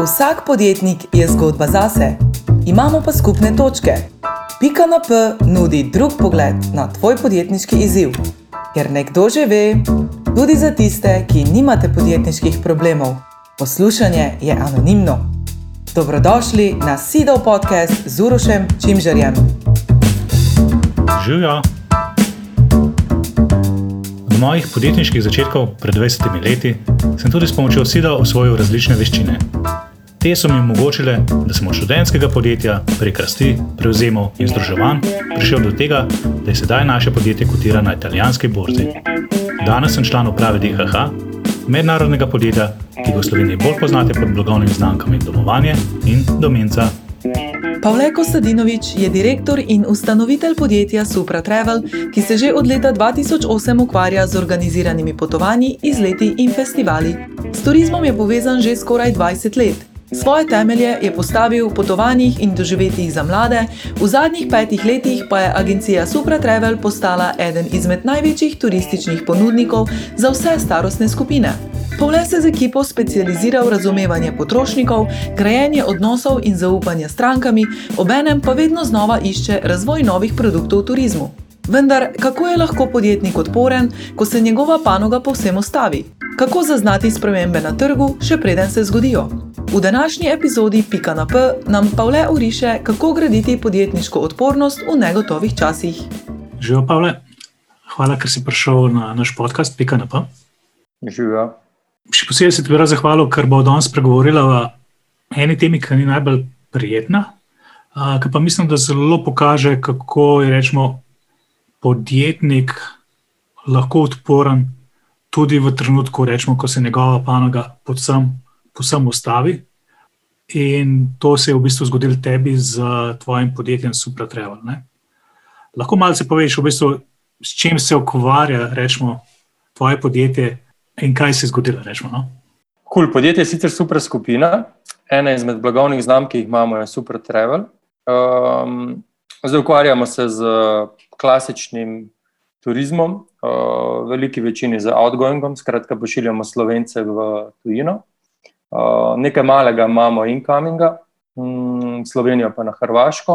Vsak podjetnik je zgodba zase, imamo pa skupne točke. Pika na P nudi drug pogled na tvoj podjetniški izziv. Ker nekdo že ve, tudi za tiste, ki nimate podjetniških problemov. Poslušanje je anonimno. Dobrodošli na Sidov podcast z Urošem Čimžarjem. Živjo! Od mojih podjetniških začetkov pred 20 leti sem tudi s pomočjo Sida osvojil različne veščine. Te so mi omogočile, da sem od študentskega podjetja prek rasti, prevzemov in združevanj prišel do tega, da je sedaj naše podjetje kotira na italijanski borzi. Danes sem član uprave DHH, mednarodnega podjetja, ki ga v Sloveniji bolj poznate pod blagovnimi znamkami Domovanje in Domenca. Pavle Kostadinović je direktor in ustanovitelj podjetja Supra Travel, ki se že od leta 2008 ukvarja z organiziranimi potovanji, izleti in festivali. S turizmom je povezan že skoraj 20 let. Svoje temelje je postavil v potovanjih in doživetjih za mlade, v zadnjih 5 letih pa je agencija Supra Travel postala eden izmed največjih turističnih ponudnikov za vse starostne skupine. Pavle se z ekipo specializira v razumevanje potrošnikov, grajenje odnosov in zaupanje s strankami, obenem pa vedno znova išče razvoj novih produktov v turizmu. Vendar, kako je lahko podjetnik odporen, ko se njegova panoga povsem ustavi? Kako zaznati spremembe na trgu, še preden se zgodijo? V današnji epizodi Pika na P nam Pavle oriše, kako graditi podjetniško odpornost v negotovih časih. Živijo, Pavle. Hvala, ker si prišel na naš podcast Pika na P. Živijo. Še posebej se ti bi rad zahvalil, ker bo danes spregovorila o eni temi, ki ni najbolj prijetna, ki pa mislim, da zelo pokaže, kako je, rečemo, podjetnik lahko odporen tudi v trenutku, rečemo, ko se njegova panoga povsem ustavi. In to se je v bistvu zgodilo tebi z tvojim podjetjem Supra Travel, ne? Lahko malce poveš v bistvu, s čim se ukvarja, rečemo, tvoje podjetje in kaj se je zgodilo, rečemo, no? Podjetje je sicer Supra skupina. Ena izmed blagovnih znamk, ki jih imamo, je Supra Travel. Zdaj ukvarjamo se z klasičnim turizmom, v veliki večini z outgoingom, skratka pošiljamo Slovence v tujino. Nekaj malega imamo incominga, Slovenijo pa na Hrvaško.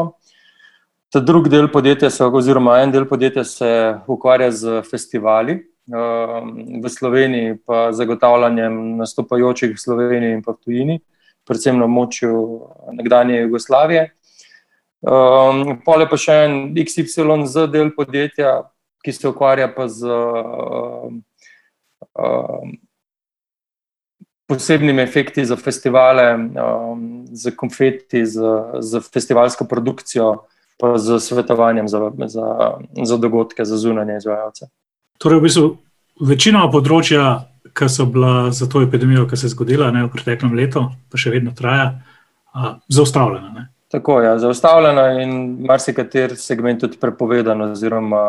Ta drugi del podjetja oziroma en del podjetja se ukvarja z festivali, v Sloveniji pa zagotavljanjem nastopajočih v Sloveniji in pa v tujini, predvsem na območju nekdanje Jugoslavije. Pol je pa še en XYZ del podjetja, ki se ukvarja pa z posebnimi efekti za festivale, z konfeti, z festivalsko produkcijo, pa z svetovanjem za dogodke, za zunanje izvajalce. Torej, v bistvu, večinoma področja, ki so bila za to epidemijo, ki se je zgodila, ne, v preteklem letu, pa še vedno traja, zaustavljena, ne? Tako je, zaustavljena in marsikater segment tudi prepovedan oziroma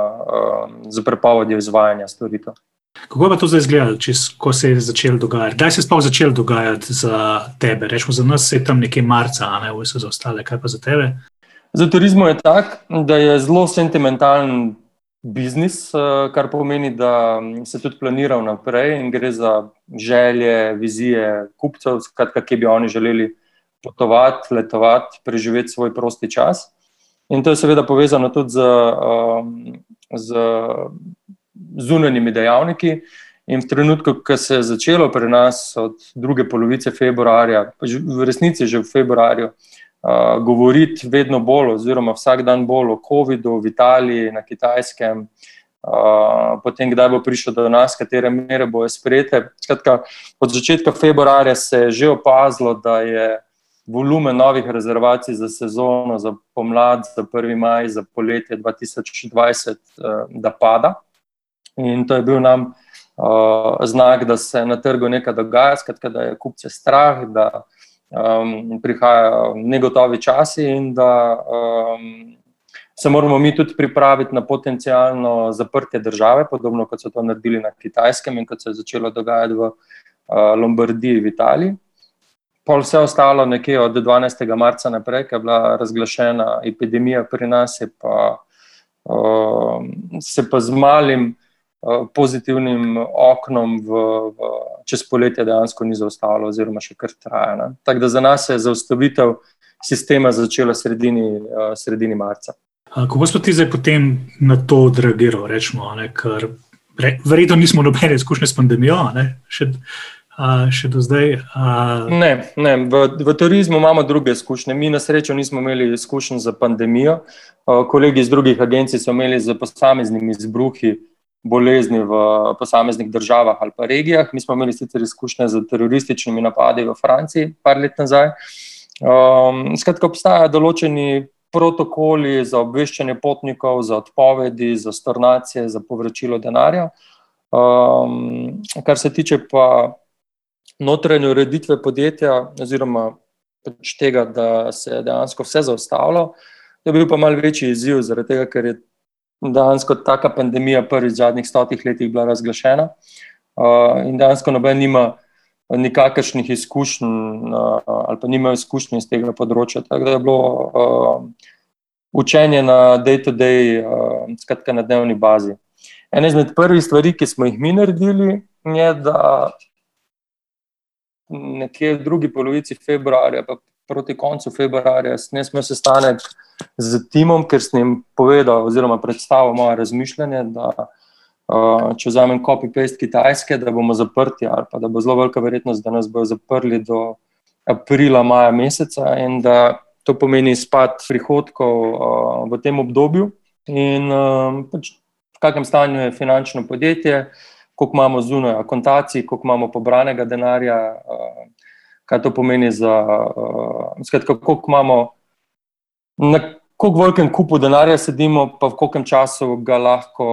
z prepovedjo izvajanja storitev. Kako je pa to zdaj izgledalo, ko se je začelo dogajati? Kdaj se je sploh začelo dogajati za tebe? Rečemo, za nas se je tam nekje marca, a ne, so za ostale, kaj pa za tebe? Za turizmu je tak, da je zelo sentimentalen biznis, kar pomeni, da se tudi planira vnaprej in gre za želje, vizije kupcev, skratka, kje bi oni želeli potovati, letovati, preživeti svoj prosti čas. In to je seveda povezano tudi z zunanjimi dejavniki. In v trenutku, ko se je začelo pri nas od druge polovice februarja, v resnici že v februarju, govoriti vedno bolj oziroma vsak dan bolj o covidu v Italiji, na Kitajskem, potem kdaj bo prišel do nas, katere mere bojo sprejete. Skratka, od začetka februarja se je že opazilo, da je volumen novih rezervacij za sezono, za pomlad, za 1. maj, za poletje 2020, da pada. In to je bil nam znak, da se na trgu nekaj dogaja, skratka, da je kupce strah, da prihajajo negotovi časi in da se moramo mi tudi pripraviti na potencialno zaprtje države, podobno kot so to naredili na Kitajskem in kot se je začelo dogajati v Lombardiji v Italiji. Pol vse ostalo nekje od 12. marca naprej, ko je bila razglašena epidemija pri nas, se pa z malim pozitivnim oknom čez poletje dejansko ni zaustavilo oziroma še kar traja. Ne. Tako da za nas je zaustavitev sistema začela sredini marca. Kako smo ti zdaj potem na to odreagiral, rečemo, ne, ker verjetno nismo nobene izkušnje s pandemijo, ne, še do zdaj? Ne, v turizmu imamo druge izkušnje. Mi na srečo nismo imeli izkušenj za pandemijo. Kolegi iz drugih agencij so imeli z posameznimi izbruhi bolezni v posameznih državah ali pa regijah. Mi smo imeli sicer izkušnje z terorističnimi napadi v Franciji par let nazaj. Skratka, obstajajo določeni protokoli za obveščanje potnikov, za odpovedi, za stornacije, za povračilo denarja. Kar se tiče pa notranje ureditve podjetja oziroma tega, da se je dejansko vse zaustavilo, je bil pa malo večji izziv, zaradi tega, ker je dejansko taka pandemija prvič v zadnjih 100 letih bila razglašena in dejansko noben nima nikakršnih izkušenj ali pa nimajo izkušnje iz tega področja. Tako da je bilo učenje na day-to-day, skratka na dnevni bazi. Ena izmed prvih stvari, ki smo jih mi naredili, je, da nekje v drugi polovici februarja, pa proti koncu februarja, sem imel sestanek z timom, ker sem jim povedal oziroma predstavil moje razmišljanje, da če vzamem copy-paste Kitajske, da bomo zaprti ali pa da bo zelo velika verjetnost, da nas bodo zaprli do aprila, maja meseca in da to pomeni izpad prihodkov v tem obdobju in v kakem stanju je finančno podjetje, koliko imamo zunaj akontacij, koliko imamo pobranega denarja, kaj to pomeni skratka, koliko imamo, na koliko velikem kupu denarja sedimo, pa v kolkem času ga lahko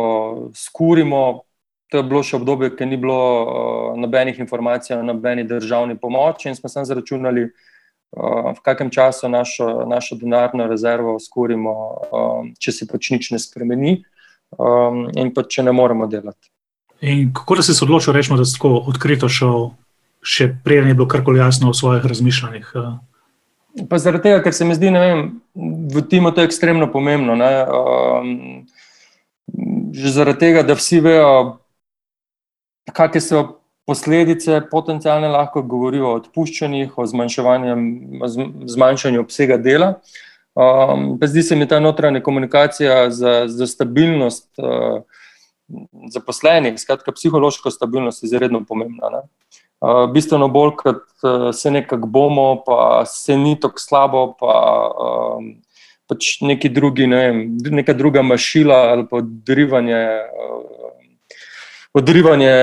skurimo. To je bilo še obdobje, ker ni bilo nobenih informacij o nobeni državni pomoči in smo samo zaračunali, v kakem času našo denarno rezervo skurimo, če se pač nič ne spremeni in pa če ne moremo delati. In kako da si se odločil, rečemo, da si tako odkrito šel, še preden je bilo karkoli jasno o svojih razmišljanjih? Pa zaradi tega, ker se mi zdi, ne vem, v timu to je ekstremno pomembno. Ne? Že zaradi tega, da vsi vejo, kakšne so posledice potencialne, lahko govorijo o odpuščanjih, o zmanjšanju obsega dela. Pa zdi se mi ta notranja komunikacija za stabilnost zaposlenih, skratka psihološko stabilnost je izredno pomembna. Ne? Bistveno bolj, kot se nekako bomo, pa se ni tako slabo, pa pač neki drugi, ne vem, neka druga mašila ali pa odrivanje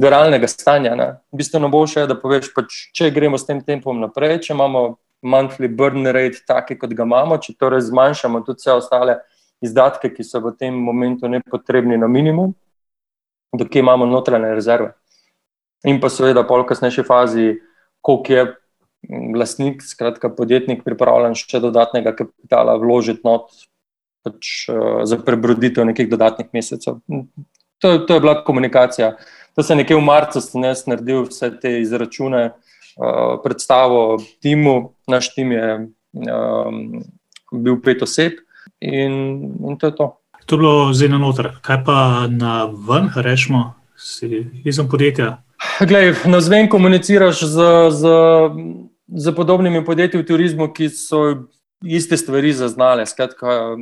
viralnega stanja. Ne? Bistveno boljše je, da poveš, pač, če gremo s tem tempom naprej, če imamo monthly burn rate taki, kot ga imamo, če torej zmanjšamo tudi vse ostale izdatke, ki so v tem momentu nepotrebni na minimum, dokaj imamo notranje rezerve. In pa seveda pol v kasnejši fazi, koliko je lastnik, skratka podjetnik, pripravljen še dodatnega kapitala vložiti not pač, za prebroditev nekih dodatnih mesecev. To je bila komunikacija. To se nekje v marcu sem jaz naredil vse te izračune, predstavo timu. Naš tim je bil 5 oseb in to je to. To je bilo zdaj na noter. Kaj pa na ven, rečemo, si izven podjetja? Glej, navzven komuniciraš z podobnimi podjetji v turizmu, ki so iste stvari zaznale. Skratka,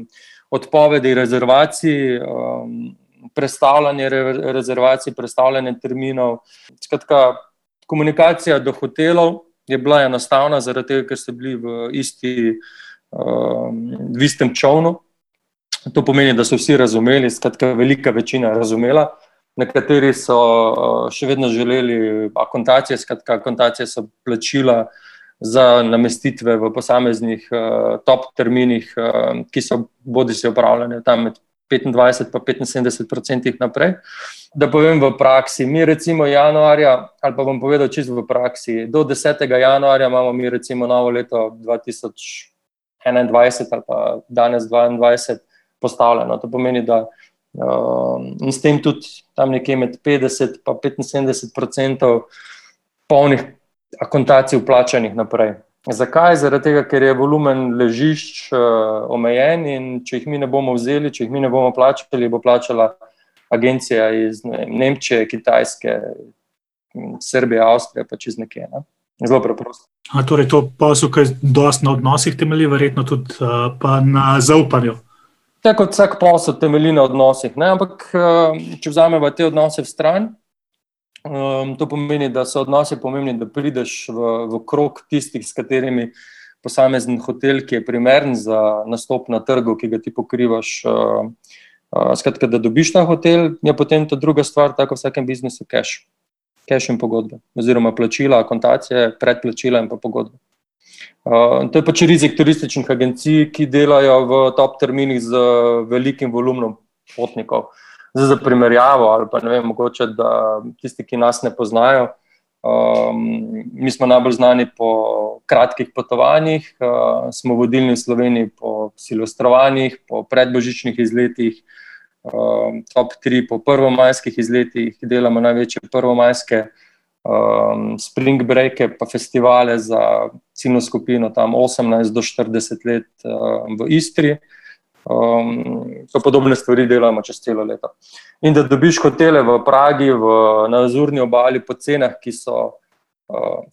odpovedi rezervacij, prestavljanje rezervacij, prestavljanje terminov. Skratka, komunikacija do hotelov je bila enostavna, zaradi tega, ker so bili v istem čovnu. To pomeni, da so vsi razumeli, skratka, velika večina razumela. Nekateri so še vedno želeli akontacije, skratka, akontacije so plačila za namestitve v posameznih top terminih, ki so bodisi opravljene tam med 25 pa 75% naprej. Da povem v praksi, mi recimo januarja, ali pa bom povedal čisto v praksi, do 10. januarja imamo mi recimo novo leto 2021 ali pa danes 2022 postavljeno. To pomeni, da in s tem tudi tam nekje med 50 pa 75% polnih akontacij vplačanih naprej. Zakaj? Zaradi tega, ker je volumen ležišč omejen in če jih mi ne bomo vzeli, če jih mi ne bomo plačali, bo plačala agencija iz Nemčije, Kitajske, Srbije, Avstrije, pač iz nekje. Ne? Zelo preprosto. Torej to posel, ki je dosti na odnosih temelji, verjetno tudi pa na zaupanju. Tako kot vsak posel temelji na odnosih, ne? Ampak če vzamemo te odnose v stran, to pomeni, da so odnosi pomembni, da prideš v krog tistih, s katerimi posamezen hotel, ki je primeren za nastop na trgu, ki ga ti pokrivaš, skratka, da dobiš ta hotel, je potem ta druga stvar, tako v vsakem biznisu, cash in pogodbe, oziroma plačila, akontacije, predplačila in pa pogodbe. To je pač rizik turističnih agencij, ki delajo v top terminih z velikim volumnom potnikov. Zdaj za primerjavo, ali pa ne vem, mogoče, da tisti, ki nas ne poznajo, mi smo najbolj znani po kratkih potovanjih, smo vodilni v Sloveniji po silvestrovanjih, po predbožičnih izletih, top 3 po prvomajskih izletih, delamo največje prvomajske spring breake pa festivale za ciljno skupino tam 18 do 40 let v Istri. To podobne stvari delamo čez celo leto. In da dobiš hotele v Pragi, na Azurni obali po cenah, ki so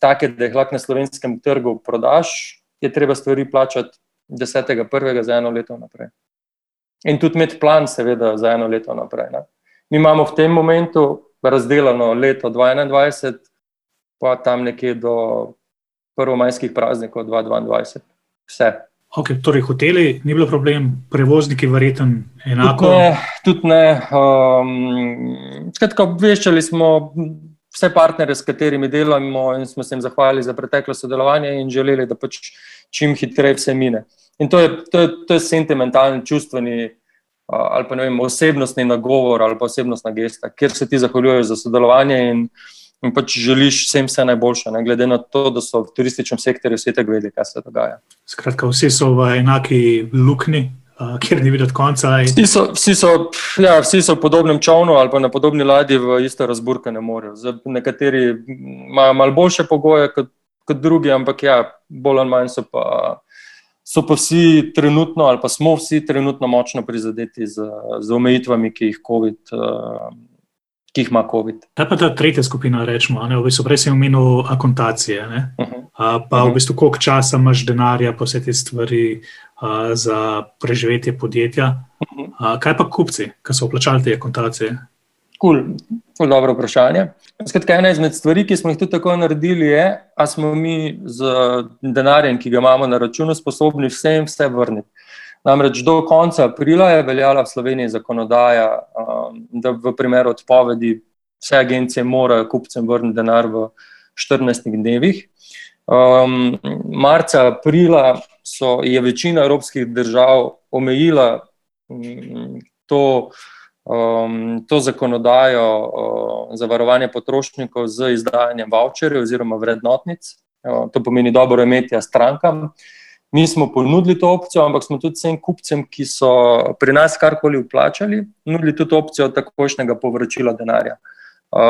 take, da jih lahko na slovenskem trgu prodaš, je treba stvari plačati 10.1. za 1 leto naprej. In tudi imeti plan seveda za 1 leto naprej. Ne? Mi imamo v tem momentu razdelano leto 2021, pa tam nekje do prvomajskih praznikov 2022. Vse. Ok, torej hoteli ni bilo problem, prevozniki verjetno enako? Tudi ne. Skratka, obveščali smo vse partnerje, s katerimi delamo in smo se jim zahvalili za preteklo sodelovanje in želeli, da pač čim hitreje vse mine. In to je sentimentalni, čustveni ali pa ne vem, osebnostni nagovor ali pa osebnostna gesta, kjer se ti zahvaljujejo za sodelovanje in pač želiš vsem vse najboljše, ne, glede na to, da so v turističnem sektorju vsi tako vedeli, kaj se dogaja. Skratka, vsi so v enaki luknji, kjer ni videti konca. Vsi so v podobnem čovnu ali pa na podobni ladji v isto razburkanem morju. Nekateri imajo malo boljše pogoje kot drugi, ampak ja, bolj ali manj so pa vsi trenutno ali pa smo vsi trenutno močno prizadeti z omejitvami, ki jih ima COVID. Kaj pa ta tretja skupina, rečemo, v bistvu prej sem omenil akontacije, ne? Pa v bistvu koliko časa imaš denarja pa vse te stvari za preživetje podjetja. Kaj pa kupci, ki so vplačali te akontacije? Cool, dobro vprašanje. Skratka, ena izmed stvari, ki smo jih tudi tako naredili, je, a smo mi z denarjem, ki ga imamo na računu, sposobni vse vrniti. Namreč do konca aprila je veljala v Sloveniji zakonodaja, da v primeru odpovedi vse agencije morajo kupcem vrniti denar v 14 dnevih. Marca, aprila je večina evropskih držav omejila to zakonodajo za varovanje potrošnikov z izdajanjem vavčerjev oziroma vrednotnic. To pomeni dobro imetje strankam. Mi smo ponudili to opcijo, ampak smo tudi vsem kupcem, ki so pri nas karkoli vplačali, nudili tudi opcijo takojšnjega povračila denarja.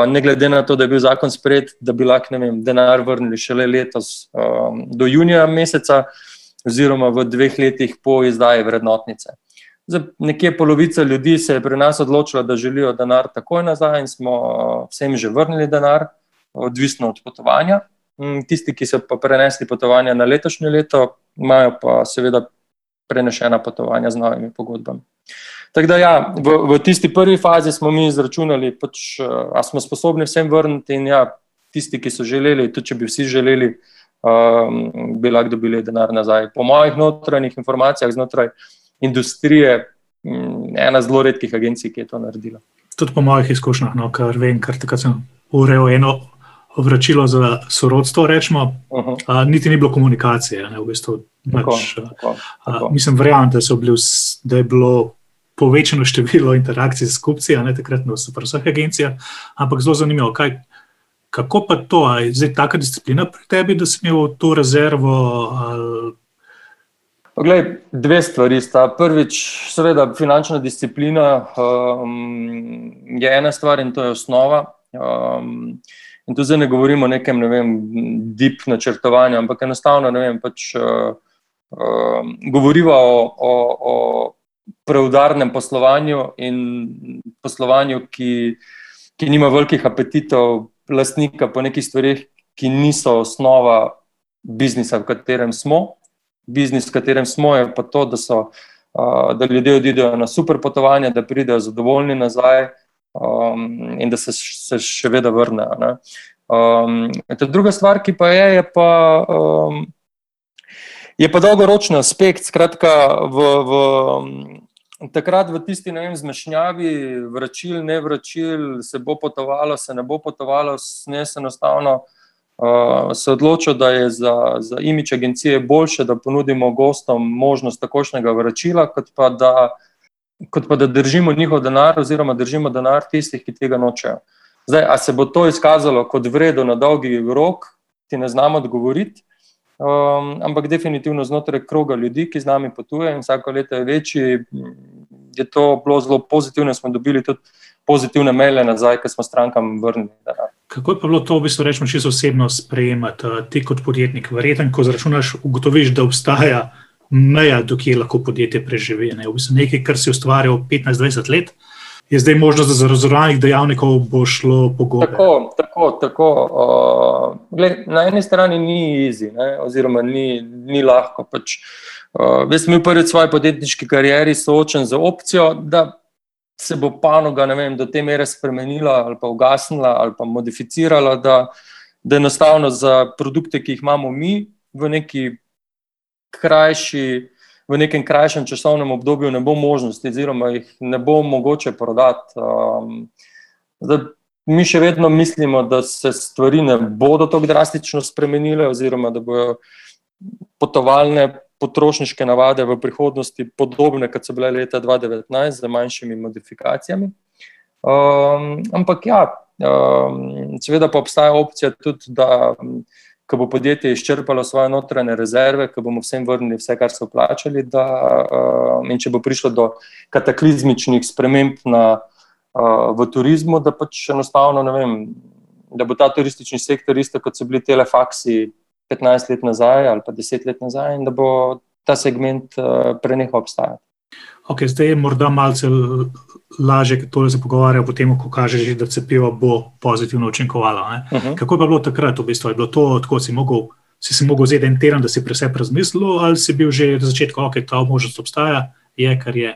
Ne glede na to, da je bil zakon sprejet, da bi lahko, denar vrnili šele letos do junija meseca oziroma v 2 letih po izdaji vrednotnice. Nekje polovica ljudi se je pri nas odločila, da želijo denar takoj nazaj in smo vsem že vrnili denar, odvisno od potovanja. Tisti, ki so pa prenesli potovanja na letošnje leto, imajo pa seveda prenešena potovanja z novimi pogodbami. Tako da ja, v tisti prvi fazi smo mi izračunali, a smo sposobni vsem vrniti in ja, tisti, ki so želeli, tudi če bi vsi želeli, bi lahko dobili denar nazaj. Po mojih notranjih informacijah znotraj industrije, ena zelo redkih agencij, ki je to naredila. Tudi po mojih izkušnjah, kar vem, ker takrat sem urejal eno vračilo za sorodstvo, rečemo, niti ni bilo komunikacije. Ne, v bistvu, tako. Mislim, verjamem, da je bilo povečano število interakcij s kupci, takrat na vseh agencijah, ampak zelo zanimivo, kako pa to, je zdaj taka disciplina pri tebi, da si imel to rezervo? Poglej, 2 stvari sta. Prvič, seveda, finančna disciplina je ena stvar in to je osnova. In tu zdaj ne govorimo o nekem, deep načrtovanju, ampak enostavno, govoriva o preudarnem poslovanju in poslovanju, ki nima velikih apetitov lastnika po nekih stvarih, ki niso osnova biznisa, v katerem smo. Biznis, v katerem smo, je pa to, da ljudje odidejo na super potovanja, da pridejo zadovoljni nazaj in da se še vedno vrnejo. Ne. Druga stvar, ki pa je pa dolgoročni aspekt. Skratka, takrat v tisti, ne vem, zmešnjavi vračil, ne vračil, se bo potovalo, se ne bo potovalo, enostavno se odločil, da je za imidž agencije boljše, da ponudimo gostom možnost takošnjega vračila, kot pa da držimo njihov denar oziroma držimo denar tistih, ki tega nočejo. Zdaj, a se bo to izkazalo kot vredo na dolgi rok, ti ne znam odgovoriti, ampak definitivno znotraj kroga ljudi, ki z nami potuje in vsako leto je večji, je to bilo zelo pozitivno, smo dobili tudi pozitivne maile nazaj, ker smo strankam vrnili denar. Kako je pa bilo to, v bistvu rečemo, čisto osebno sprejemati ti kot podjetnik? Verjetno, ko zračunaš, ugotoviš, da obstaja meja, do kje lahko podjetje preživi. Ne? V bistvu nekaj, kar si ustvarjal 15-20 let, je zdaj možnost, da za raznoraznih dejavnikov bo šlo po gobe. Tako. Na eni strani ni easy, ne? Oziroma ni lahko. Jaz sem bil prvi v svoji podjetniški karieri soočen z opcijo, da se bo panoga, ne vem, do te mere spremenila ali pa ugasnila ali pa modificirala, da enostavno za produkte, ki jih imamo mi v nekem krajšem časovnem obdobju ne bo možnosti oziroma jih ne bo mogoče prodati. Mi še vedno mislimo, da se stvari ne bodo tako drastično spremenile oziroma da bojo potovalne potrošniške navade v prihodnosti podobne, kot so bile leta 2019, z manjšimi modifikacijami. Ampak ja, seveda pa obstaja opcija tudi, da ko bo podjetje izčrpalo svoje notranje rezerve, ko bomo vsem vrnili vse, kar so plačali, in če bo prišlo do kataklizmičnih sprememb v turizmu, da pač enostavno, ne vem, da bo ta turistični sektor isto, kot so bili telefaksi 15 let nazaj ali pa 10 let nazaj in da bo ta segment prenehal obstajati. Ok, zdaj je morda malce lažje, ker tole se pogovarja potem, ko kaže že, da cepivo bo pozitivno učinkovalo. Kako je pa bilo takrat v bistvu? Je bilo to, tako si si mogel vzeti en teden, da si pri sebi razmislil, ali si bil že na začetku, ok, ta možnost obstaja, je, kar je?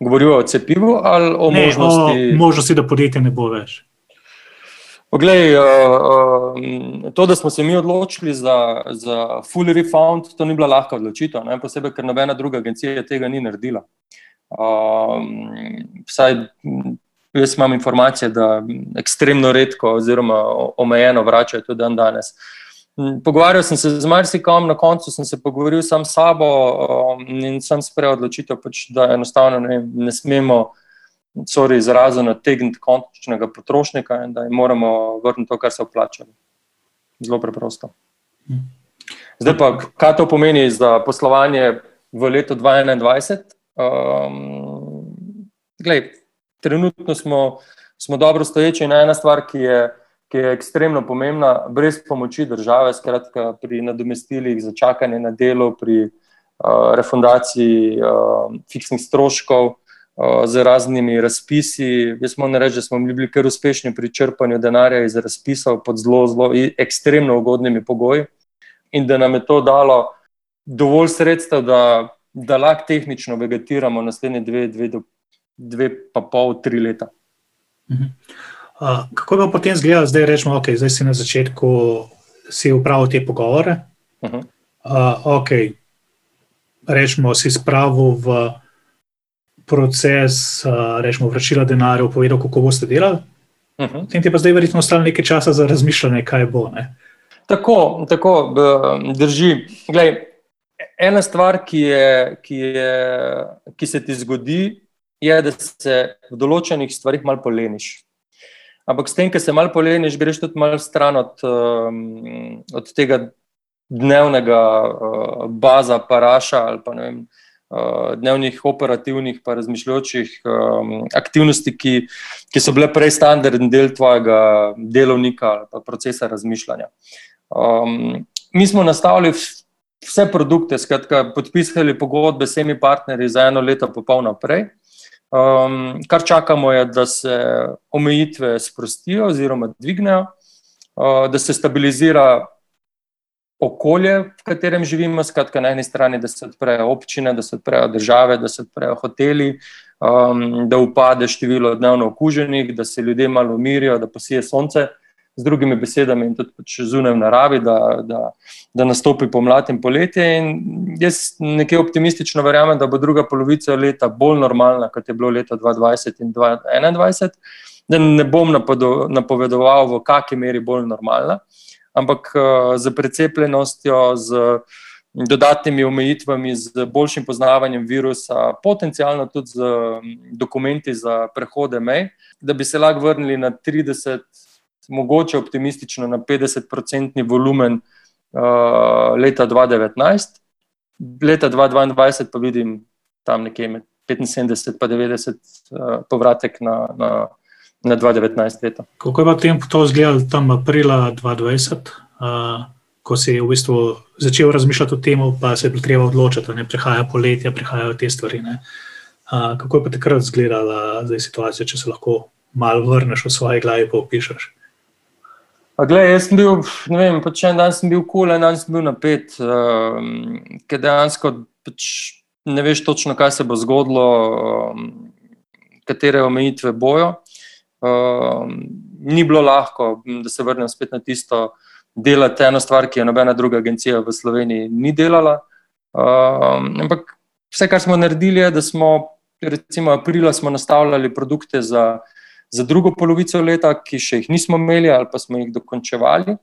Govorijo o cepivu ali o možnosti? Ne, o možnosti, da podjetje ne bo več. Poglej, to, da smo se mi odločili za full refund, to ni bila lahka odločitev, ne? Posebej, ker nobena druga agencija tega ni naredila. Vsaj jaz imam informacije, da ekstremno redko oziroma omejeno vračajo tudi dan danes. Pogovarjal sem se z marsikom, na koncu sem se pogovoril sam s sabo in sem sprejel odločitev, da enostavno ne smemo izrazu nategniti končnega potrošnika in da jim moramo vrniti to, kar so vplačali. Zelo preprosto. Zdaj pa, kaj to pomeni za poslovanje v letu 2021? Trenutno smo dobro stoječi in ena stvar, ki je ekstremno pomembna, brez pomoči države, skratka pri nadomestilih za čakanje na delo, pri refundaciji fiksnih stroškov, z raznimi razpisi. Jaz moram reči, da smo bili kar uspešni pri črpanju denarja iz razpisov pod zelo ekstremno ugodnimi pogoji in da nam je to dalo dovolj sredstev, da lahko tehnično vegetiramo naslednje 2,5–3 leta. Kako bi potem izgledalo, zdaj rečemo, ok, zdaj si na začetku si upravil te pogovore, ok, rečemo si spravil v proces, rečemo, vračila denarja, povedal, kako boste delali. Potem ti pa zdaj verjetno ostalo nekaj časa za razmišljanje, kaj bo, ne? Tako, drži. Glej, ena stvar, ki se ti zgodi, je, da se v določenih stvarih malo poleniš. Ampak s tem, ko se malo poleniš, greš tudi malo stran od tega dnevnega baza paraša ali pa, ne vem, dnevnih operativnih pa razmišljajočih aktivnosti, ki so bile prej standardni del tvojega delovnika ali pa procesa razmišljanja. Mi smo nastavili vse produkte, skratka, podpisali pogodbe s temi partnerji za 1 leto pa pol naprej. Kar čakamo je, da se omejitve sprostijo oziroma dvignejo, da se stabilizira okolje, v katerem živimo, skratka na eni strani, da se odprejo občine, da se odprejo države, da se odprejo hoteli, da upade število dnevno okuženih, da se ljudje malo umirijo, da posije sonce, z drugimi besedami in tudi zunaj v naravi, da nastopi pomlad in poletje. In jaz nekje optimistično verjamem, da bo druga polovica leta bolj normalna, kot je bilo leta 2020 in 2021, da ne bom napovedoval, v kakšni meri bolj normalna, ampak z precepljenostjo, z dodatnimi omejitvami, z boljšim poznavanjem virusa, potencialno tudi z dokumenti za prehode mej, da bi se lahko vrnili na 30%, mogoče optimistično na 50% volumen leta 2019. Leta 2022 pa vidim tam nekje med 75 pa 90 povratek na 2019 leto. Kako je pa tem to izgledalo tam aprila 2020, ko si v bistvu začel razmišljati o tem, pa se je bilo treba odločiti, ne? Prihaja poletje, prihajajo te stvari. Ne? Kako je pa takrat izgledala situacija, če se lahko malo vrneš v svoji glavi pa opišeš? Glej, jaz sem bil, ne vem, pač en dan sem bil cool, en dan sem bil napet, ker dejansko pač ne veš točno, kaj se bo zgodilo, katere omejitve bojo. Ni bilo lahko, da se vrnem spet na tisto, delati eno stvar, ki je nobena druga agencija v Sloveniji ni delala. Ampak vse, kar smo naredili, je, da smo recimo aprila smo nastavljali produkte za drugo polovico leta, ki še jih nismo imeli ali pa smo jih dokončevali.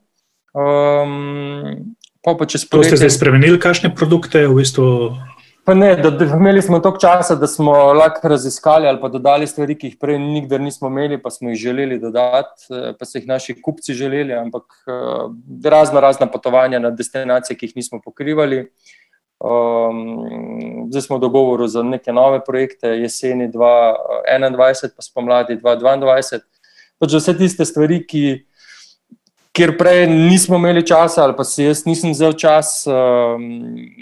To ste zdaj spremenili, kakšne produkte v bistvu? Pa ne, imeli smo toliko časa, da smo lahko raziskali ali pa dodali stvari, ki jih prej nikdar nismo imeli, pa smo jih želeli dodati, pa so jih naši kupci želeli, ampak razna potovanja na destinacije, ki jih nismo pokrivali. Zdaj smo v dogovoru za neke nove projekte, jeseni 2021 pa spomladi 2022. Pač vse tiste stvari, kjer prej nismo imeli časa ali pa si jaz nisem vzel čas,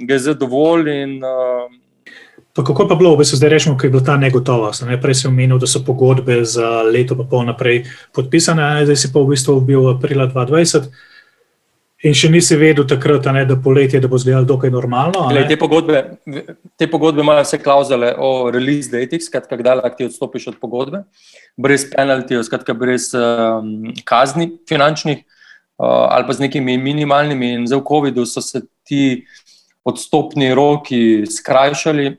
ga je zdaj dovolj. Pa kako pa bilo, v bistvu zdaj rečemo, ko je bila ta negotovost? Prej si omenil, da so pogodbe za leto pa pol naprej podpisane, zdaj si pa v bistvu bil aprila 2020. In še nisi vedel takrat, da poletje, da bo izgledalo dokaj normalno? Te pogodbe imajo vse klauzule o release datih, skratka, kdaj lahko ti odstopiš od pogodbe, brez penaltijev, skratka, brez kazni finančnih ali pa z nekimi minimalnimi. In zdaj v covidu so se ti odstopni roki skrajšali,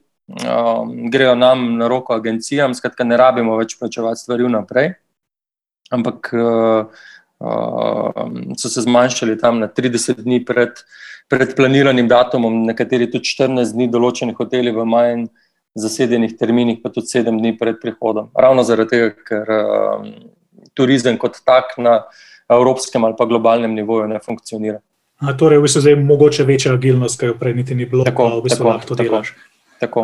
grejo nam na roko agencijam, skratka, ne rabimo več plačevati stvari vnaprej, ampak so se zmanjšali tam na 30 dni pred planiranim datumom, nekateri tudi 14 dni, določeni hoteli v manj zasedenih terminih, pa tudi 7 dni pred prihodom. Ravno zaradi tega, ker turizem kot tak na evropskem ali pa globalnem nivoju ne funkcionira. Torej, v bistvu zdaj mogoče večja agilnost, kaj jo prej niti ni bilo, pa v bistvu lahko to delaš. Tako.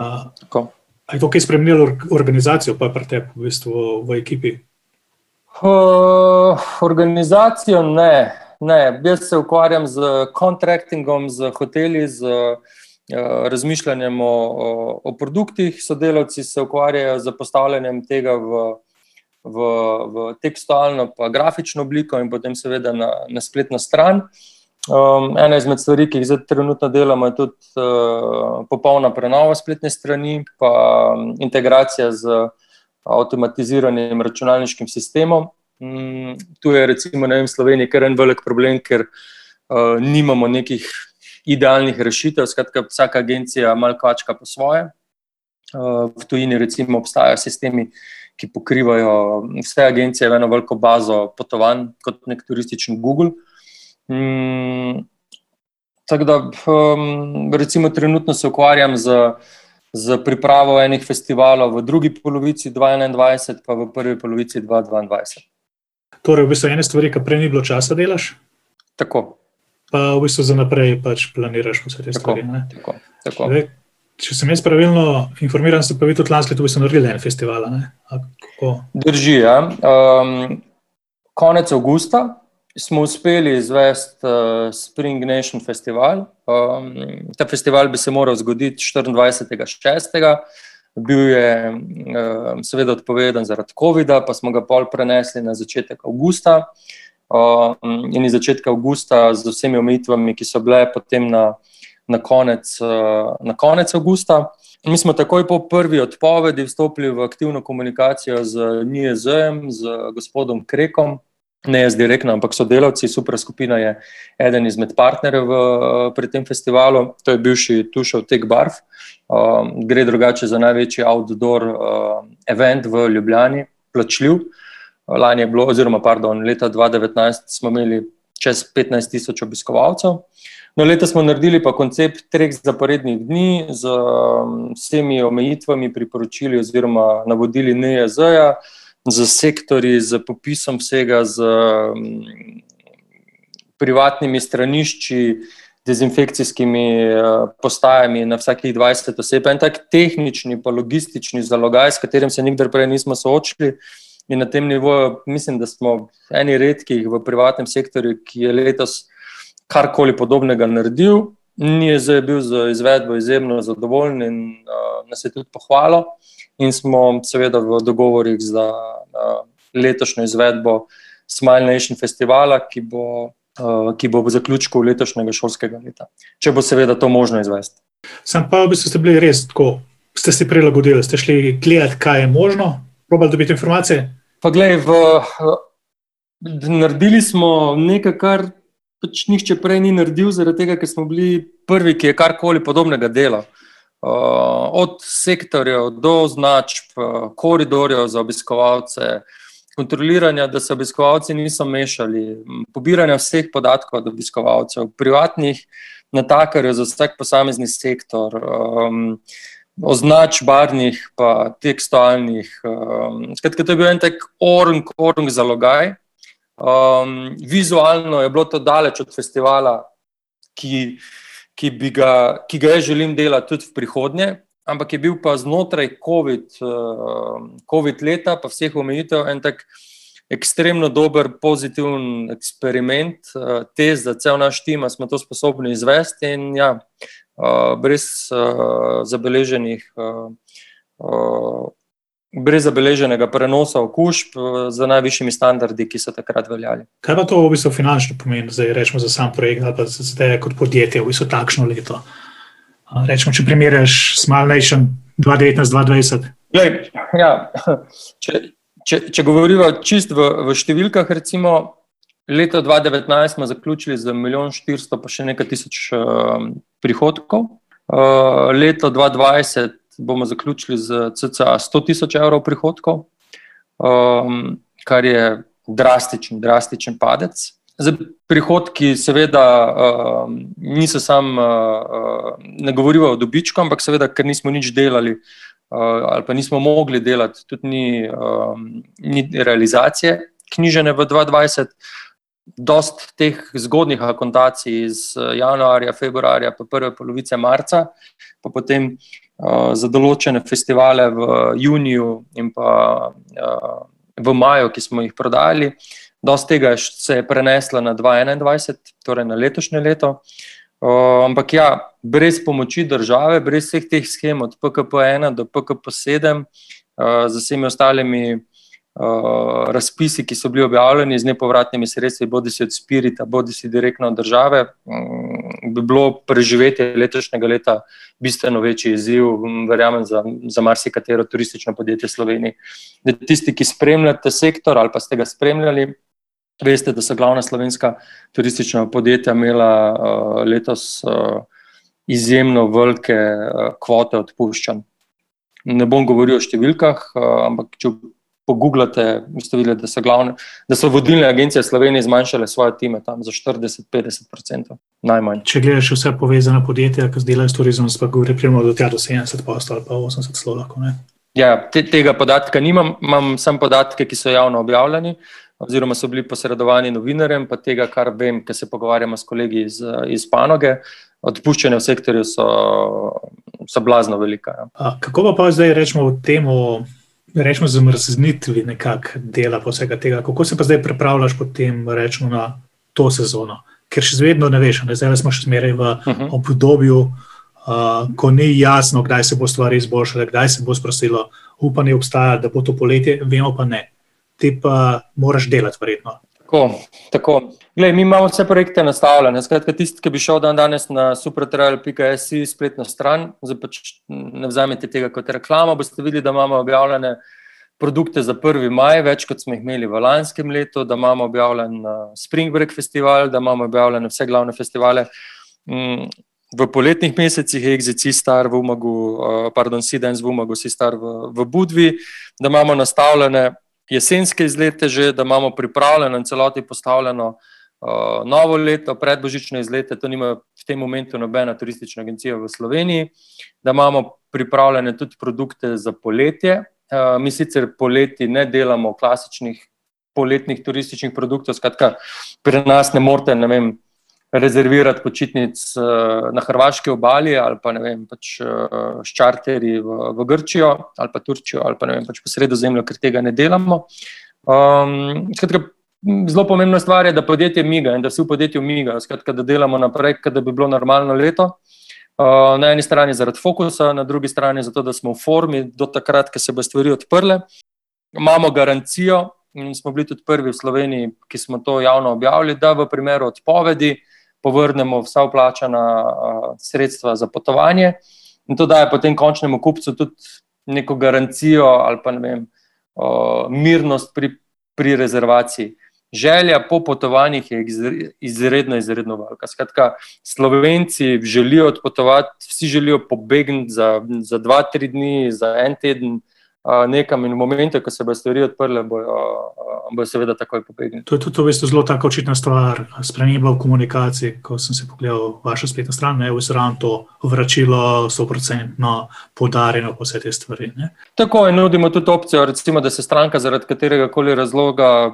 A je to kaj spremenilo organizacijo pa pri tebi v bistvu v ekipi? Organizacijo ne. Jaz se ukvarjam z contractingom, z hoteli, z razmišljanjem o produktih, sodelavci se ukvarjajo z postavljanjem tega v tekstualno pa grafično obliko in potem seveda na spletno stran. Ena izmed stvari, ki jih zdaj trenutno delamo, je tudi popolna prenova spletne strani pa integracija z avtomatiziranim računalniškim sistemom. Tu je recimo v Sloveniji kar en velik problem, ker nimamo nekih idealnih rešitev, skratka vsaka agencija malo kvačka po svoje. V tujini recimo obstajajo sistemi, ki pokrivajo vse agencije v eno veliko bazo potovanj, kot nek turistični Google. Tako da recimo trenutno se ukvarjam z pripravo enih festivalov v drugi polovici 2021 pa v prvi polovici 2022. Torej, v bistvu ene stvari, ki prej ni bilo časa delaš? Tako. Pa v bistvu za naprej pač planiraš vse te stvari, ne? Tako. Če sem jaz pravilno informiran, ste pa vi tudi lansko leto v bistvu naredili en festival, ne? Drži, ja. Konec avgusta smo uspeli izvesti Spring Nation festival. Ta festival bi se moral zgoditi 24.6. Bil je seveda odpovedan zaradi covida, pa smo ga pol prenesli na začetek avgusta. In iz začetka avgusta z vsemi omejitvami, ki so bile potem na konec avgusta. Mi smo takoj po prvi odpovedi vstopili v aktivno komunikacijo z NIJZ-jem, z gospodom Krekom, ne jaz direktno, ampak sodelavci. Supra skupina je eden izmed partnerjev pri tem festivalu, to je bivši Tušev Tech Barv. Gre drugače za največji outdoor event v Ljubljani, plačljiv. Lani je bilo, leta 2019 smo imeli čez 15,000 obiskovalcev. No, leta smo naredili pa koncept 3 zaporednih dni z vsemi omejitvami, priporočili oziroma navodili NIJZ-ja, z sektorji, z popisom vsega, z privatnimi stranišči, dezinfekcijskimi postajami na vsakih 20 oseb. En tak tehnični pa logistični zalogaj, s katerim se nikdar prej nismo soočili. In na tem nivoju mislim, da smo eni redkih v privatnem sektorju, ki je letos karkoli podobnega naredil. NIJZ je bil z izvedbo izjemno zadovoljen in nas je tudi pohvalil. In smo seveda v dogovorih za letošnjo izvedbo Smile Nation festivala, ki bo v zaključku letošnjega šolskega leta. Če bo seveda to možno izvesti. Sam pa v bistvu ste bili res tako, ste si prilagodili, ste šli gledati, kaj je možno, probali dobiti informacije? Pa glej, naredili smo nekaj, kar pač nihče prej ni naredil, zaradi tega, ker smo bili prvi, ki je karkoli podobnega dela. Od sektorjev do označb, koridorjev za obiskovalce, kontroliranja, da se obiskovalci niso mešali, pobiranja vseh podatkov od obiskovalcev, privatnih natakarjev za vsak posamezni sektor, označb barvnih pa tekstualnih. Skratka, to je bil en tak orang zalogaj. Vizualno je bilo to daleč od festivala, ki ga jaz želim delati tudi v prihodnje, ampak je bil pa znotraj COVID leta pa vseh omejitev en tak ekstremno dober, pozitiven eksperiment, test za cel naš tim, smo to sposobni izvesti in ja, brez zabeleženega prenosa okužb z najvišjimi standardi, ki so takrat veljali. Kaj pa to v bistvu finančno pomeni, zdaj rečemo za sam projekt ali pa za te kot podjetje v bistvu takšno leto? Rečemo, če primerjaš Smile Nation 2019-2020. Ja, če govoriva čist v številkah, recimo leto 2019 smo zaključili z 1,400,000 pa še nekaj tisoč prihodkov. Leto 2020 bomo zaključili z cca 100,000 evrov prihodkov, kar je drastičen padec. Prihodki seveda niso ne govorijo o dobičku, ampak seveda, ker nismo nič delali ali pa nismo mogli delati, tudi ni realizacije knjižene v 2020. Dost teh zgodnih akontacij iz januarja, februarja pa prve polovice marca, pa potem za določene festivale v juniju in pa v maju, ki smo jih prodali. Dost tega se je preneslo na 2021, torej na letošnje leto. Ampak ja, brez pomoči države, brez vseh teh shem od PKP1 do PKP7, z vsemi ostalimi razpisi, ki so bili objavljeni z nepovratnimi sredstvi, bodisi od Spirita, bodisi direktno od države, bi bilo preživetje letošnjega leta bistveno večji izziv, verjamem, za marsikatero turistično podjetje v Sloveniji. Tisti, ki spremljate sektor ali pa ste ga spremljali, veste, da so glavna slovenska turistična podjetja imela letos izjemno velike kvote odpuščanj. Ne bom govoril o številkah, ampak če pogooglate, boste videli, da so vodilne agencije v Sloveniji zmanjšale svoje time tam za 40-50%, najmanj. Če gledaš vse povezane podjetja, ki delajo s turizmom, pa govori primerno do 70% ali pa 80% celo lahko, ne? Ja, tega podatka nimam, imam samo podatke, ki so javno objavljeni, oziroma so bili posredovani novinarjem, pa tega, kar vem, ker se pogovarjamo s kolegi iz panoge, odpuščanja v sektorju so blazno velika. Ja. Kako pa zdaj rečemo o temu rečemo, zamrznitvi nekako dela po vsega tega. Kako se pa zdaj pripravljaš potem, rečemo, na to sezono? Ker še vedno ne veš, zdaj smo še zmeraj v obdobju, ko ni jasno, kdaj se bo stvari izboljšale, kdaj se bo sprostilo. Upanje obstaja, da bo to poletje, vemo pa ne. Ti pa moraš delati verjetno. Tako. Glej, mi imamo vse projekte nastavljene. Skratka, tisti, ki bi šel danes na supratravel.si spletno stran, zdaj pač ne vzamete tega kot reklamo, boste videli, da imamo objavljene produkte za 1. maj, več kot smo jih imeli v lanskem letu, da imamo objavljen Spring Break festival, da imamo objavljene vse glavne festivale. V poletnih mesecih je Exit Seastar v Umagu, Sea Dance v Umagu, Seastar v Budvi, da imamo nastavljene jesenske izlete že, da imamo pripravljeno in celoti postavljeno novo leto, predbožično izlete, to nima v tem momentu nobena turistična agencija v Sloveniji, da imamo pripravljene tudi produkte za poletje. Mi sicer poleti ne delamo klasičnih poletnih turističnih produktov, skratka, pri nas ne morete, rezervirati počitnic na hrvaški obali ali pa, pač s čarterji v Grčijo ali pa Turčijo ali pa, pač po Sredozemlju, ker tega ne delamo. Skratka, zelo pomembna stvar je, da podjetje miga in da vsi v podjetju migajo, skratka, da delamo naprej, da bi bilo normalno leto. Na eni strani zaradi fokusa, na drugi strani zato, da smo v formi do takrat, ko se bo stvari odprle. Imamo garancijo in smo bili tudi prvi v Sloveniji, ki smo to javno objavili, da v primeru odpovedi povrnemo vsa vplačana sredstva za potovanje in to daje potem končnemu kupcu tudi neko garancijo ali pa mirnost pri rezervaciji. Želja po potovanjih je izredno velika. Skratka, Slovenci želijo odpotovati, vsi želijo pobegniti za 2-3 dni, za 1 teden nekam in v momentu, ko se bo stvari odprle, bo seveda takoj pobegniti. To je tudi v bistvu zelo taka očitna stvar, sprememba v komunikaciji, ko sem se pogledal vašo spletno stran, je ravno to vračilo 100% poudarjeno po vse te stvari. Ne? Tako in nudimo tudi opcijo, recimo, da se stranka zaradi katerega koli razloga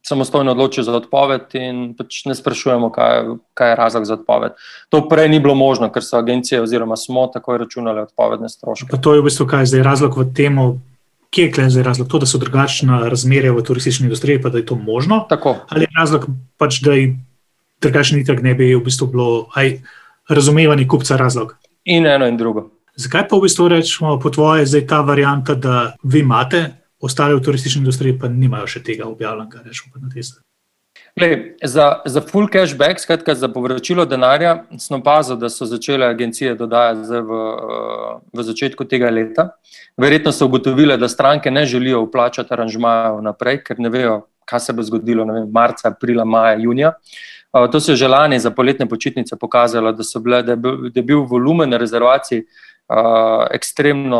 samostojno odloči za odpoved in pač ne sprašujemo, kaj je razlog za odpoved. To prej ni bilo možno, ker so agencije oziroma smo takoj računale odpovedne stroške. Pa to je v bistvu kaj zdaj razlog v temu, kje je zdaj razlog? To, da so drugačna razmerja v turistični industriji, pa da je to možno? Tako. Ali je razlog pač, da je drugačni itak ne bi v bistvu bilo razumevanje kupca razlog? In eno in drugo. Zakaj pa v bistvu rečemo po tvoje zdaj ta varianta, da vi imate, ostali v turistični industriji pa nimajo še tega objavljenega, rečemo pa na tiste? Za full cashback, skratka za povračilo denarja, sem opazil, da so začele agencije dodajati v začetku tega leta. Verjetno so ugotovile, da stranke ne želijo vplačati aranžmajev naprej, ker ne vejo, kaj se bo zgodilo marca, aprila, maja, junija. To se je že lani za poletne počitnice pokazalo, da je bil volumen rezervacij ekstremno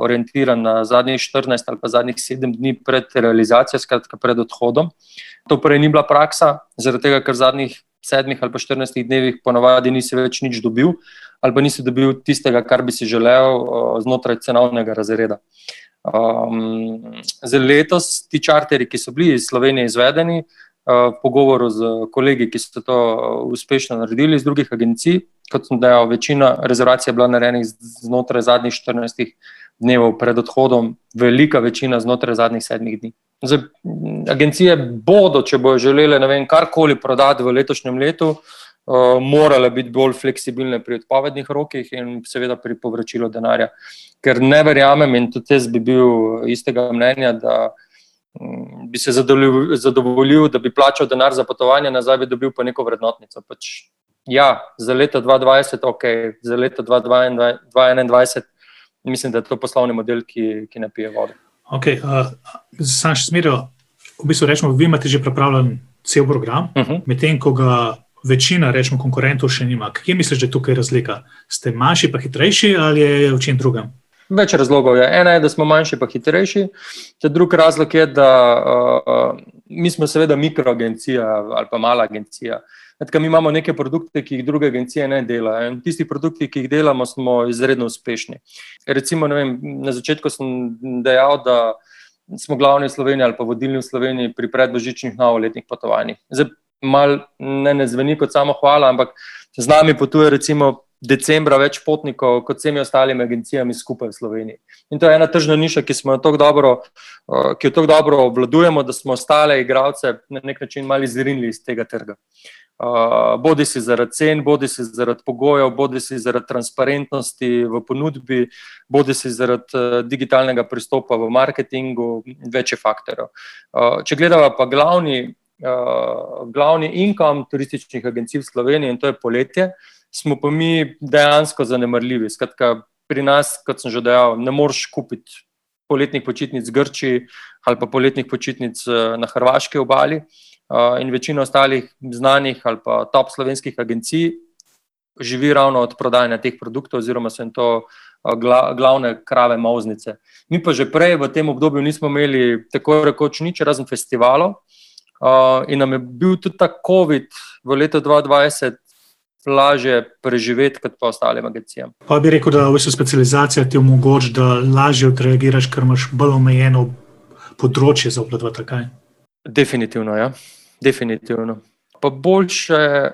orientiran na zadnjih 14 ali pa zadnjih 7 dni pred realizacijo, skratka pred odhodom. To prej ni bila praksa, zaradi tega, ker v zadnjih 7 ali pa 14 dnevih ponavadi nisi več nič dobil ali pa nisi dobil tistega, kar bi si želel znotraj cenovnega razreda. Za letos ti čarterji, ki so bili iz Slovenije izvedeni, v pogovoru z kolegi, ki so to uspešno naredili iz drugih agencij, kot sem dejal, večina rezervacij je bila narejenih znotraj zadnjih 14 dnevov pred odhodom, velika večina znotraj zadnjih 7 dni. Zdaj, agencije bodo, če bojo želele karkoli prodati v letošnjem letu, morale biti bolj fleksibilne pri odpovednih rokih in seveda pri povračilu denarja. Ker ne verjamem in tudi jaz bi bil istega mnenja, da bi se zadovoljil, da bi plačal denar za potovanje, nazaj bi dobil pa neko vrednotnico. Ja, za leto 2020, ok, za leto 2021, mislim, da je to poslovni model, ki ne pije vode. Ok, sam še smeril, v bistvu rečemo, vi imate že pripravljen cel program, medtem ko ga večina, rečemo, konkurentov še nima. Kje misliš, da je tukaj razlika? Ste manjši pa hitrejši ali je v čem drugem? Več razlogov je. Ena je, da smo manjši pa hitrejši. Drugi razlog je, da mi smo seveda mikroagencija ali pa mala agencija. Mi imamo neke produkte, ki jih druge agencije ne delajo. In tisti produkti, ki jih delamo, smo izredno uspešni. Recimo, na začetku sem dejal, da smo glavni v Sloveniji ali pa vodilni v Sloveniji pri predbožičnih novoletnih potovanjih. Zdaj, malo ne zveni kot samo hvala, ampak z nami potuje recimo decembra več potnikov kot vsemi ostalimi agencijami skupaj v Sloveniji. In to je ena tržna niša, ki jo tako dobro obvladujemo, da smo ostale igralce na nek način malo izrinili iz tega trga. Bodi si zaradi cen, bodi si zaradi pogojev, bodi si zaradi transparentnosti v ponudbi, bodi si zaradi digitalnega pristopa v marketingu, več je faktorjev. Če gledava pa glavni income turističnih agencij v Sloveniji, in to je poletje, smo pa mi dejansko zanemarljivi. Skratka, pri nas, kot sem že dejal, ne moreš kupiti poletnih počitnic v Grčiji ali pa poletnih počitnic na hrvaški obali, in večina ostalih znanih ali pa top slovenskih agencij živi ravno od prodajanja teh produktov oziroma so jim to glavne krave mauznice. Mi pa že prej v tem obdobju nismo imeli tako rekoč nič razen festivalov, in nam je bil tudi ta COVID v letu 2020 lažje preživeti kot pa ostalim agencijam. Pa bi rekel, da v bistvu specializacija ti omogoča, da lažje odreagiraš, ker imaš bolj omejeno področje za obvladovati, kaj? Definitivno, ja. Definitivno. Pa boljše,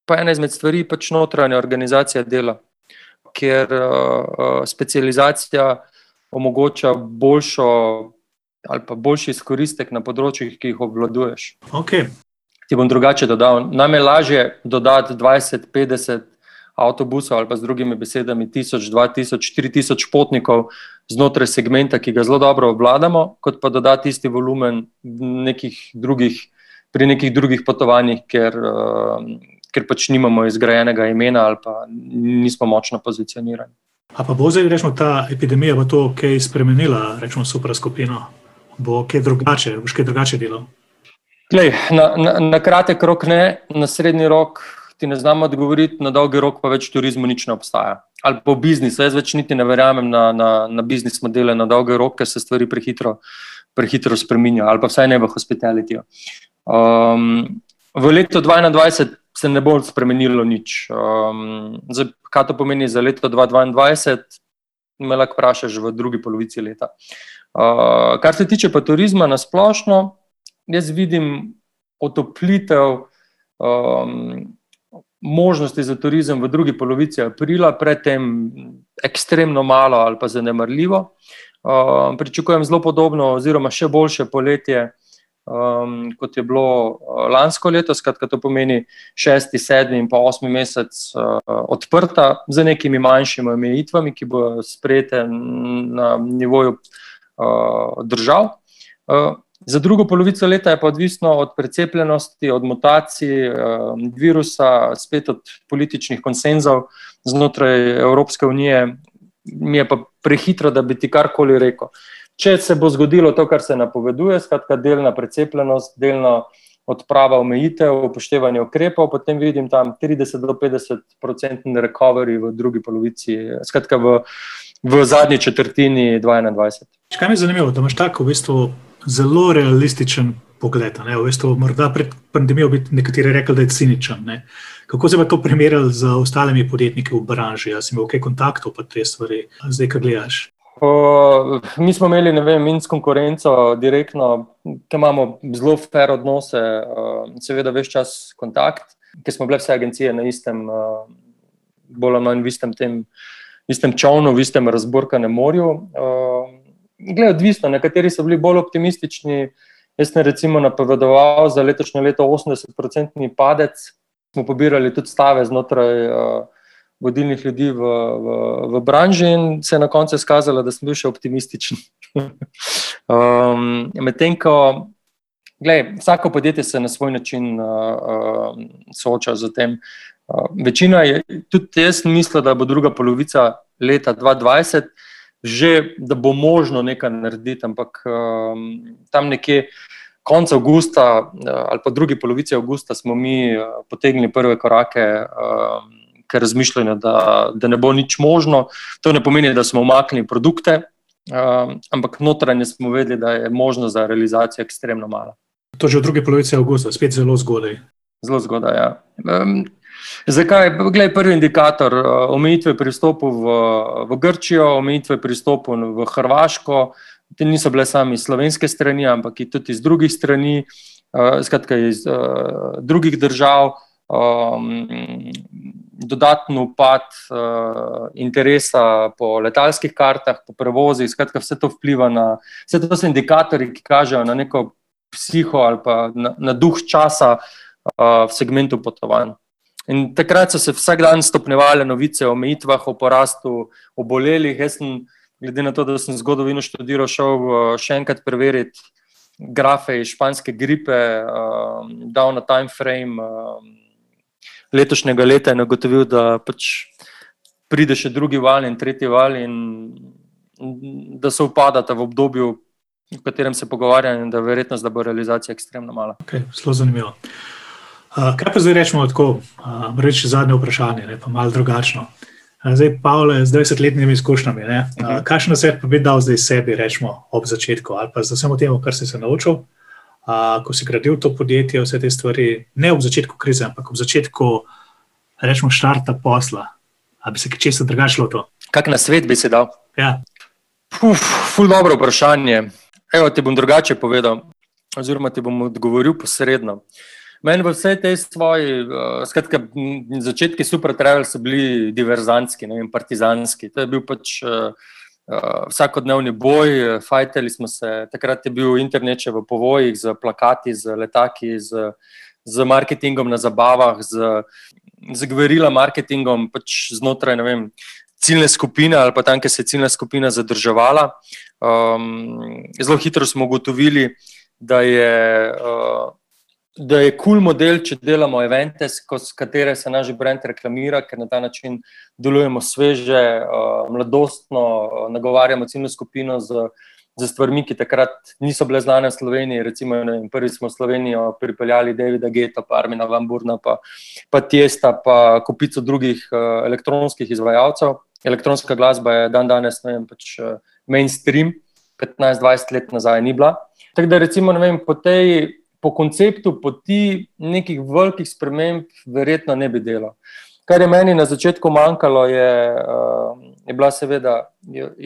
pa ena izmed stvari pač notranja organizacija dela, ker specializacija omogoča boljšo ali pa boljši izkoristek na področjih, ki jih obvladuješ. Okay. Ti bom drugače dodal. Nam je lažje dodati 20, 50 avtobusov ali pa z drugimi besedami 1000, 2000, 4000 potnikov znotraj segmenta, ki ga zelo dobro obvladamo, kot pa dodati isti volumen pri nekih drugih potovanjih, ker pač nimamo izgrajenega imena ali pa nismo močno pozicionirani. A pa bo zdaj, rečemo, ta epidemija bo to kaj spremenila, rečemo, Supra skupino? Bo kaj drugače, boš kaj drugače delal? Glej, na kratek rok ne, na srednji rok ti ne znam odgovoriti, na dolgi rok pa več turizmu nič ne obstaja. Ali pa v biznisu, jaz več niti ne verjamem na biznis modele na dolgi rok, ker se stvari prehitro spreminjajo, ali pa vsaj ne v hospitalityju. V letu 2021 se ne bo spremenilo nič. Zdaj, kaj to pomeni za leto 2022, me lahko vprašaš v drugi polovici leta. Kar se tiče pa turizma na splošno, jaz vidim otoplitev možnosti za turizem v drugi polovici aprila, predtem ekstremno malo ali pa zanemarljivo. Pričakujem zelo podobno oziroma še boljše poletje, kot je bilo lansko leto, skratka to pomeni 6., 7. in pa 8. mesec odprta z nekimi manjšimi omejitvami, ki bodo sprejete na nivoju držav. Za drugo polovico leta je pa odvisno od precepljenosti, od mutacij virusa, spet od političnih konsenzov znotraj Evropske unije. Mi je pa prehitro, da bi ti karkoli rekel. Če se bo zgodilo to, kar se napoveduje, skratka delna precepljenost, delna odprava omejitev, upoštevanje ukrepov, potem vidim tam 30 do 50% recovery v drugi polovici, skratka v zadnji četrtini 2021. Kaj mi je zanimivo, da imaš tako v bistvu zelo realističen pogled. V bistvu, morda pred pandemijo bi nekateri rekli, da je ciničen. Ne? Kako se pa to primerjali z ostalimi podjetniki v branži? Si imel kaj kontaktov pa te stvari, zdaj, kaj gledaš? Mi smo imeli, in s konkurenco direktno, ki imamo zelo fair odnose, seveda ves čas kontakt, ker smo bile vse agencije na istem, bolj ali manj v istem čovnu, v istem razburkanem morju. Glej, odvisno, nekateri so bili bolj optimistični. Jaz sem recimo napovedoval za letošnje leto 80% padec. Smo pobirali tudi stave znotraj vodilnih ljudi v branži in se je na koncu izkazalo, da sem bil še optimističen. Medtem ko, glej, vsako podjetje se na svoj način sooča z tem. Večina je, tudi jaz mislil, da bo druga polovica leta 2020 že, da bo možno nekaj narediti, ampak tam nekje konec avgusta ali pa drugi polovici avgusta smo mi potegnili prve korake k razmišljanju, da ne bo nič možno. To ne pomeni, da smo umaknili produkte, ampak notranje smo vedeli, da je možno za realizacijo ekstremno malo. To že v drugi polovici avgusta, spet zelo zgodaj. Zelo zgodaj, ja. Zakaj? Glej, prvi indikator, omejitve pri vstopu v Grčijo, omejitve pri vstopu v Hrvaško, te niso bile sami slovenske strani, ampak tudi iz drugih strani, skratka iz drugih držav. dodatno upad interesa po letalskih kartah, po prevozih, skratka vse to vpliva vse to so indikatorji, ki kažejo na neko psiho ali pa na duh časa v segmentu potovanj. In takrat so se vsak dan stopnjevale novice o omejitvah, o porastu obolelih. Jaz sem, glede na to, da sem zgodovino študiral, šel še enkrat preveriti grafe iz španske gripe, dal na time frame letošnjega leta in ugotovil, da pač pride še drugi val in tretji val in da se upadata v obdobju, v katerem se pogovarjam, in da je verjetnost, da bo realizacija ekstremno mala. Okay, zelo zanimivo. Kaj pa zdaj rečemo tako, reči zadnje vprašanje, pa malo drugačno. Zdaj, Pavle, z 20-letnimi izkušnjami, kakšen nasvet pa bi dal zdaj sebi, rečemo, ob začetku, ali pa za samo temu, kar si se naučil, ko si gradil to podjetje, vse te stvari, ne ob začetku krize, ampak ob začetku, rečemo, štarta posla, ali bi se kaj česa drugače lotil? Kak nasvet bi si dal? Ja. Ful dobro vprašanje. Evo, ti bom drugače povedal, oziroma ti bom odgovoril posredno. Meni v vsej tej svoji, skratka, začetki Supra Travel so bili diverzantski, partizanski. To je bil pač vsakodnevni boj, fajtali smo se, takrat je bil internet še v povojih, z plakati, z letaki, z marketingom na zabavah, z guerilla marketingom, pač znotraj, ciljne skupine ali pa tam, kjer se je ciljna skupina zadrževala. Zelo hitro smo ugotovili, da je cool model, če delamo evente, s katere se naš brand reklamira, ker na ta način delujemo sveže, mladostno, nagovarjamo ciljno skupino z stvarmi, ki takrat niso bile znane v Sloveniji. Recimo, prvi smo v Slovenijo pripeljali Davida Guetta, pa Armina van Burna, pa Tiesta, pa kupico drugih elektronskih izvajalcev. Elektronska glasba je danes, pač mainstream, 15-20 let nazaj ni bila. Tako da recimo, po konceptu poti nekih velikih sprememb verjetno ne bi delal. Kar je meni na začetku manjkalo, je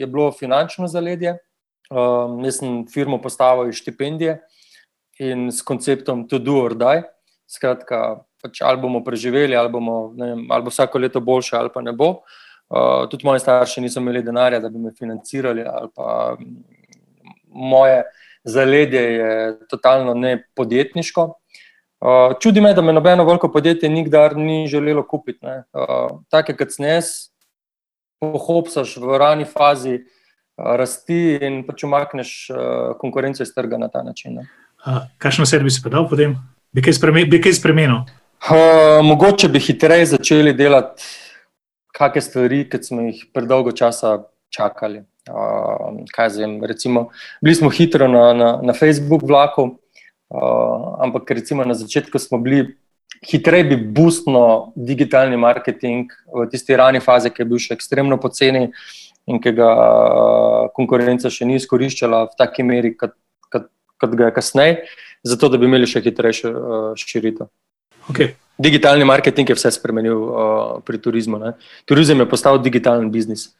bilo finančno zaledje. Jaz sem firmo postavil iz štipendije in s konceptom to do or die. Skratka, pač ali bomo preživeli, ali bo vsako leto boljše, ali pa ne bo. Tudi moji starši niso imeli denarja, da bi me financirali, ali pa moje zaledje je totalno nepodjetniško. Čudi me, da me nobeno veliko podjetje nikdar ni želelo kupiti. Take, kot sem jaz, pohopsaš v rani fazi rasti in pač umakneš konkurenco iz trga na ta način. Kakšno sed bi si pa dal potem? Bi kaj spremenil? Mogoče bi hitreje začeli delati kakšne stvari, ki smo jih predolgo časa čakali. Recimo, bili smo hitro na Facebook vlaku, ampak recimo na začetku smo bili hitreje bi boostno digitalni marketing v tisti rani fazi, ki je bil še ekstremno poceni in ki ga konkurenca še ni izkoriščala v taki meri, kot ga je kasneje, zato da bi imeli še hitrejšo širitev. Okay. Digitalni marketing je vse spremenil pri turizmu. Turizem je postal digitalen biznis.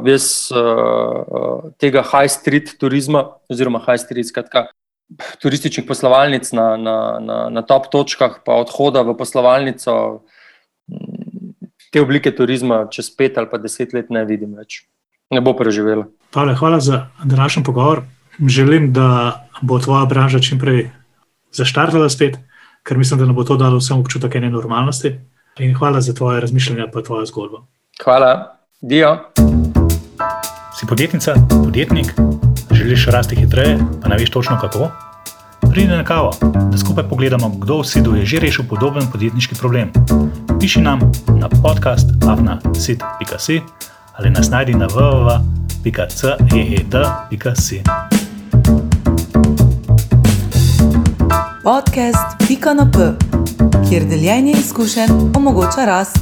Jaz tega high street turizma, oziroma high street, skratka, turističnih poslovalnic na top točkah, pa odhoda v poslovalnico, te oblike turizma čez 5 ali pa 10 let ne vidim več. Ne bo preživela. Pavle, hvala za današnji pogovor. Želim, da bo tvoja branža čimprej zaštartala spet, ker mislim, da nam bo to dalo vsem občutek ene normalnosti. In hvala za tvoje razmišljanje pa tvojo zgodbo. Hvala. Dio. Si podjetnica, podjetnik, želiš rasti hitreje, pa ne veš točno kako? Pridi na kavo, da skupaj pogledamo, kdo v SID-u je že rešil podoben podjetniški problem. Piši nam na podcast@sid.si ali nas najdi na www.ceed.si. Podcast.np, kjer deljenje izkušenj omogoča rast.